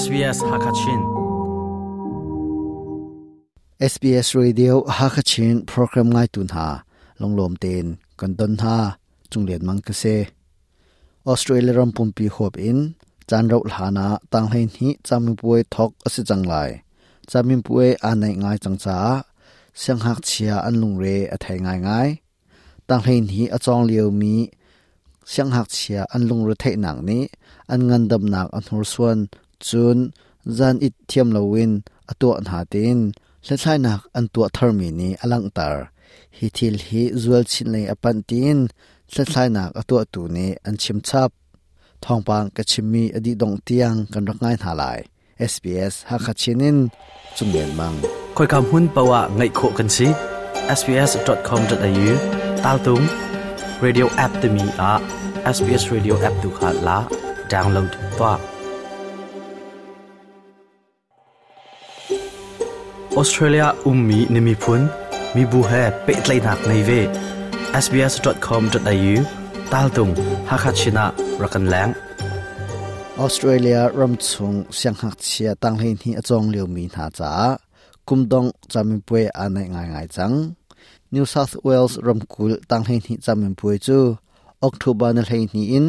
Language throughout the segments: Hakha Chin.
SBS Hakachin. SBS Radio Hakachin program ngai tu hna lunglawm tein kan don hna cunglian mang ka si. Australia ram pumpi huap in caan rauh hlan ah tanghlei hnih camipuai thok a si cang lai. Camipuai aa naih ngai cang caah sianghngakchia an lungre a thei ngaingai. Tanghlei hnih a cawng liomi sianghngakchia an lungre theihnak nih an ngandamnak a hnursuan cun zan it thiam loin a tuah hna tiin hlathlainak an tuah tharmi nih a langhter. Hi thil hi zual chin lei a panh tiin hlathlainak a tuahtu nih an chim chap. Thawngpang ka chimmi a dih dongh tiang kan rak ngai hna lai. SBS Hakha Chin in Cunglian Mang. Khoika hmun paoh ah ngaih khawh kan si. sbs.com.au tal tung radio app timi ah SBS Radio app tu kha la download tuah. Australia ummi na miphun, mibu he pehtlaihnak ngei ve. sbs.com.au tal tung Hakha Chin ah rak kan leng. Australia ramchung sianghngakchia tanghlei hnih a cawng liomi hna caah kumdong camipuai aa naih ngaingai cang. New South Wales ramkulh tanghlei hnih camipuai cu October ni 12 in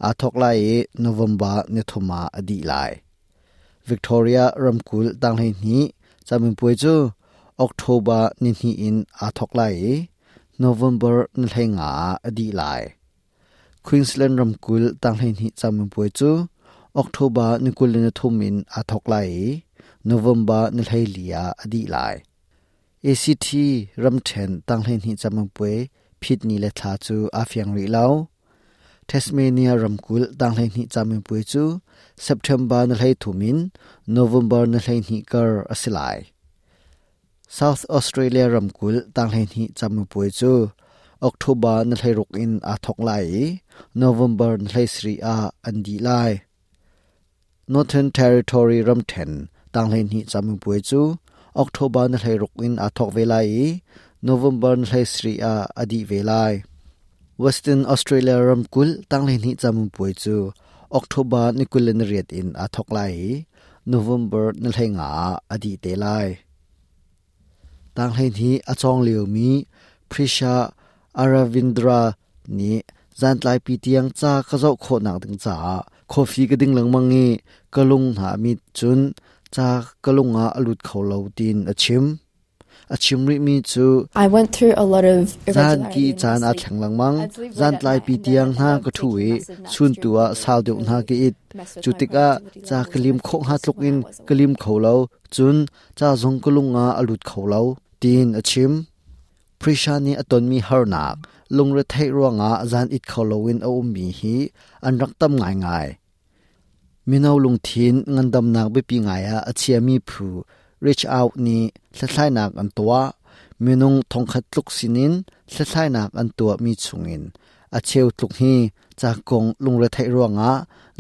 aa thawk lai i November ni thum ah a dih lai. Victoria ramkulh tanghlei hnih camipuai cu October ni hnih in aa thawk lai i November ni 15 ah a dih lai. Queensland ramkulh tanghleihnih camipuai cu October ni 23 in aa thawk lai i November ni 14 ah a dih lai. ACT ramṭhen tanghleihnih camipuai phit ni le thla cu aa fiang rih lo. Tasmania ramkulh tanghleihnih camipuai cu September ni 13 in November ni 12 kar a si lai. South Australia ramkulh tanghleihnih camipuai cu October ni 16 in aa thawk lai i November ni 17 ah an dih lai. Northern Territory ramṭhen tanghleihnih camipuai cu October ni 16 in aa thawk ve lai i November ni 17 ah a dih ve lai. Western Australia ramkulh tanghleihnih camipuai cu October ni 28 in aa thawk lai i November ni 15 ah a dih te lai. Tanghleihnih a cawng liomi Prisha Aravindra nih zantlaipi tiang ca ka zoh khawhnak ding caah coffee ka ding lengmang i ka lung hna a mit cun ca ka lung ah a lut kho lo tiin a chim. A chim rihmi cu I went through a lot of zan ki irregularity in my caan aa sleep. thleng lengmang. I'd sleep late at Zantlai night pi and then tiang I'd hna end up ka ṭhu taking i massive naps chun during tu the ah week, sau deuh hna mess ka it. with Cu my tikah productivity ca levels ka and lim my khawh hnga focus tluk when in I was ka lim awake. kho lo. Cun ca zong ka lung ah a lut kho lo, tiin a chim. Prisha nih a tonmi harnak, lungretheih ruangah zan it kho loin a ummi hi an rak tam ngaingai. Mino lungthin ngandamnak biapi ngai ah a chiami phu Reach Out nih hlathlainak an tuah. Minung thongkhat tluk sinin hlathlainak an tuahmi chungin a cheu tluk hi ca kong lungretheih ruangah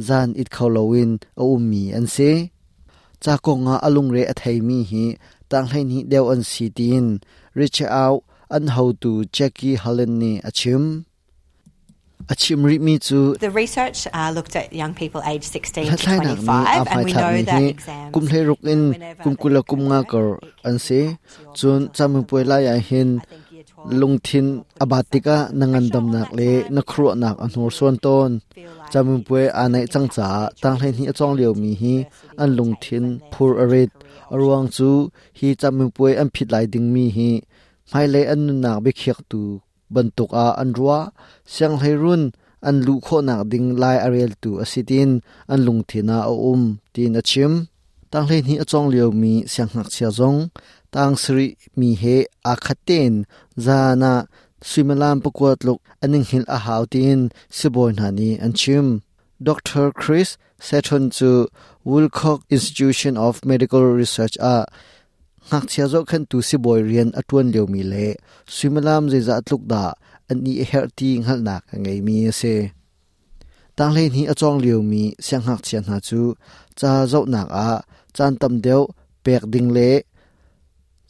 zan it kho loin a ummi an si. Ca kongah a lungre a theimi hi tanghleihnih deuh an si tiin Reach Out an hotu Jackie Holland nih a chim. A chim rihmi cu The research looked at young people aged 16 to hlathlainak nih 25, aa and we know hmaithlakmi that hi exams, kum 16 in whenever kum they 20 kum nga occur, kar it can an si. impact your Cun mental health camipuai and lai ah hin I think year 12 lungthin you're a putting bat such tikah na pressure on ngandamnak that le time na because khuaruahnak a you hnursuan tawn. feel like Camipuai it's aa naih cang impacting caah their tanghleihnih choices a cawng and liomi hi university an intakes lungthin and their phur a future rit. career A ruang options. cu hi camipuai an phit lai dingmi hi hmailei an nunnak biakhiaktu bantuk ah an ruah. Sianghleirun an luh khawhnak ding lai a reltu a si tiin an lungthin ah a um tiin a chim. Tanghleihnih a cawng liomi siangngakchia zong tang sarih mi he aa khat tein zan ah suimilam pakua tluk an i hngilh a hau tiin sibawi hna nih an chim. Dr. Chris Seton cu Woolcock Institution of Medical Research ah ngakchia zohkhenhtu sibawi rian a ṭuan liomi le suimilam zeizah tluk dah an i herh ti hngalhnak a ngeimi a si. Tanghleihnih a cawng liomi siangngakchia hna cu ca zohnak ah caan tam deuh pek ding le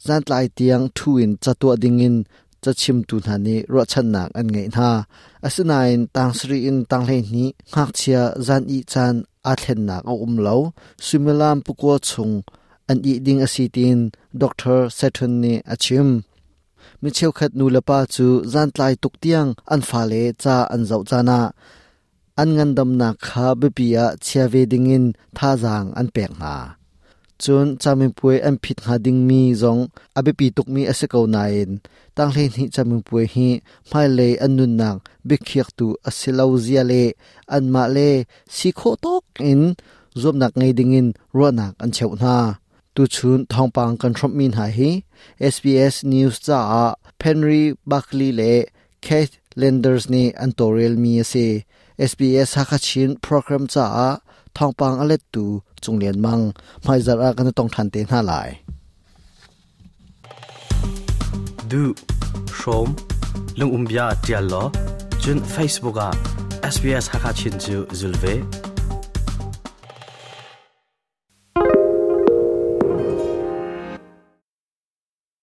zantlai tiang ṭhu in ca tuah dingin cachimtu hna nih ruahchannak an ngeih hna. Asinain tang sarih in tanghleihnih ngakchia zan ih caan aa thlennak a um lo. Suimilam pakua chung an ih ding a si tiin Dr. Setton nih a chim. Mi cheukhat nulepa cu zantlai tuk tiang an fale ca an zoh caan ah an ngandamnak kha biapi ah chia ve dingin thazaang an pek hna. Cun camipuai an phit hnga dingmi zong a biapi tukmi a si ko nain tanghleihnih camipuai hi hmailei an nunnak biakhiaktu a si lo zia le anmah le si khawh tawk in zuamnak ngei dingin ruahnak an cheuh hna. Tuchun thawngpang kan hrawmhmi hna hi SBS News caah Henry Buckley le Keith Landers nih an tawlrelmi a si. SBS Hakha Chin program caah thawngpang a lettu Cung Lian Mang. Hmaizarh ah kan i tong ṭhan te hna lai. Duh, hrawm, lungumbia ṭial law, cun Facebook ah SBS Hakha Chin cu zul ve.